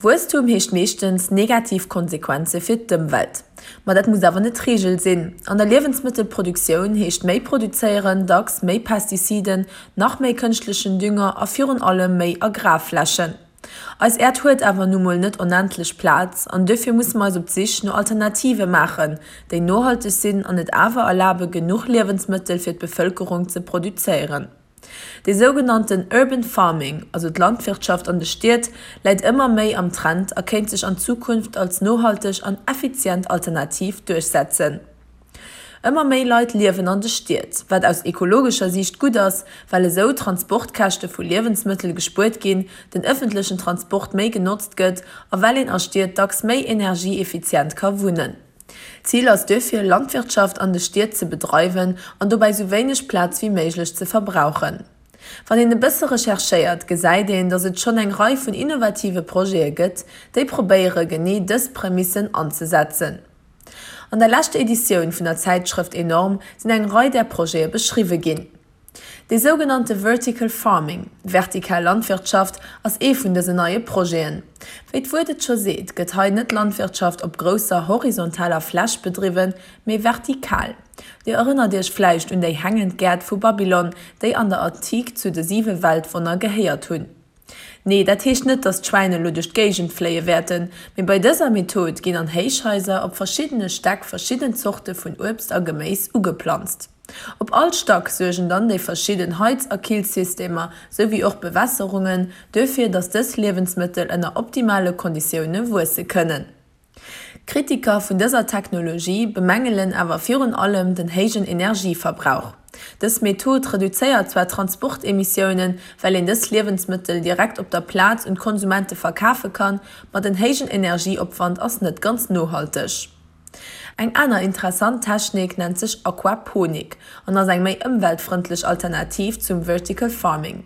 Wuesstum heescht meeschtens negativ Konsequenze fir d'Ëmwelt. Ma dat muss awer net d'Reegel sinn. An der Liewensmëttelproduktioun heescht méi produzéieren dacks méi Pestiziden, nach méi kënschtlechen Dünger a virun allem méi Agrarflächen. Eis Äerd huet awer nu mol net onendlech Plaz an duerfir musse mer eis op d'Sich no Alternative maachen, déi nohalteg sinn an et awer erlabe genuch Liewensmëttel fir d'Bevëlkerung ze produzéieren. Dee sougenannten Urban Farming, also d'Landwirtschaft an de Stied, läit ëmmer méi am Trend a kéint sech an Zukunft als nohalteg an effizient Alternativ duerchsetzen. Ëmmer méi Leit liewen an de Stied, wat aus ekologescher Siicht gutt ass, well esou Transportkäschte vu Liewensmëttel gespuert ginn, den ëffentlechen Transport méi genotzt gëtt a well een a Stied dacks méi energieeffizient ka wunnen. D'Zil ass duerfir, Landwirtschaft an de Stied ze bedreiwen an dobäi sou wéineg Plaz wéi méiglech ze verbrauchen. Wann een e bësse recherchéiert, gesäit een, datt et schonn eng Rei vun innovative Projete gëtt, déi probéiere genee dës Prämissen anzesetzen. An der leschter Editioun vun der Zäitschrëft Enorm sinn eng Rei där Projete beschriwwe ginn. Dee sougenannte Vertical Farming, vertikal Landwirtschaft, ass ee vun dësen neie Projeten. Wéi d'Wuert et scho seet, gëtt hei net Landwirtschaft op grousser horizontaler Fläch bedriwwen, mee vertikal. Dir erënnert iech vläicht un déi hängend Gäert vu Babylon, déi an der Antik zu de siwe Weltwonner gehéiert hunn. Nee, dat heescht net, dass d'Schwäin elo duerch d'Géigend fléie wäerten, mee bei dëser Method ginn an Héichhaiser op verschiddene Stäck verschidden Zorte vun Uebst a Geméis ugeplanzt. Op all Stack suergen dann déi verschidden Heiz a Killsystemer, sou wéi och Bewässerungen, duerfir, dass dës Liewensmëttel ënner optimale Konditioune wuesse kënnen. Kritiker vun dëser Technologie bemängelen awer virun allem den héijen Energieverbrauch. Dës Method reduzéiert zwar d'Transportemissiounen, well een dës Liewensmëttel direkt op der Plaz un d'Konsumente verkafe kann, ma den héijen Energieopwand ass net ganz nohalteg. Eng aner interessant Technik nennt sech Aquaponik an ass eng méi ëmweltfrëndlech Alternativ zum Vertical Farming.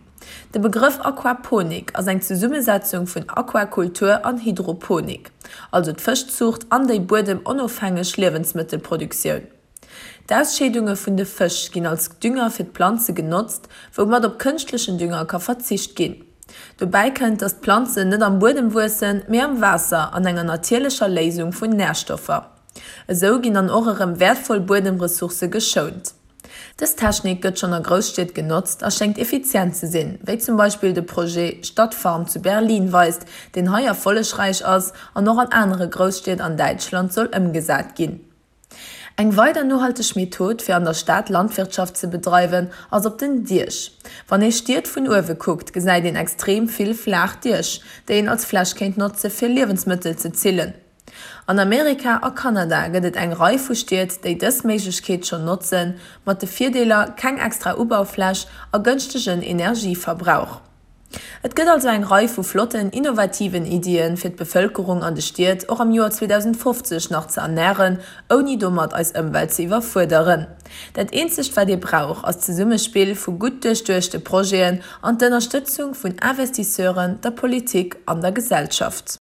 De Begrëff Aquaponik ass eng Zesummesetzung vun Aquakultur an Hydroponik, also d'Fëschzuucht an déi buedemonofhängeg Liewensmëttelproduktioun. D'Ausscheedunge vun de Fësch ginn als Dünger fir d'Planze genotzt, woumat op kënschtlechen Dünger ka verzicht ginn. Dobäi kënnt, datt d'Planzen net am Buedem wuessen, mee am Waasser an enger natierlecher Léisung vun Närstoffer. Esou ginn dann och erëm wäertvoll Buedemressourcë geschount. Dës Technik gëtt schonn a Grousstied genotzt a schéngt effizient ze sinn, wéi zum Beispill de Projet Stadtfarm zu Berlin weist, deen hei erfollegräich ass an och an anere Grousstied an Däitschland soll ëmgesat ginn. Eng weider nohalteg Method, fir an der Stad Landwirtschaft ze bedreiwen, ass op den Diech. Wann ee Stied vun uewe kuckt, gesäit een extrem vill flaach Diech, déi een als Fläch kéint notze fir Liewensmëttel ze zillen. An Amerika a Kanada gëtt et eng Rei vu Stied, déi dës Méiglechkeet schonn notzen, mat de Virdeeler, keng extra Ubaufläch a gënschtegen Energieverbrauch. Et gëtt also eng Rei vu flotten, innovativen Iddien, fir d'Bevëlkerung an de Stied och am Joer 2050 nach ze ernären, ouni domat eis Ëmwelt ze iwwerfuerderen. Dat eenzegt wat ee brauch, ass d'Zesummespill vu gutt duerchduechte Projeten an d'Ënnerstëtzung vun Investisseuren, der Politik an der Gesellschaft.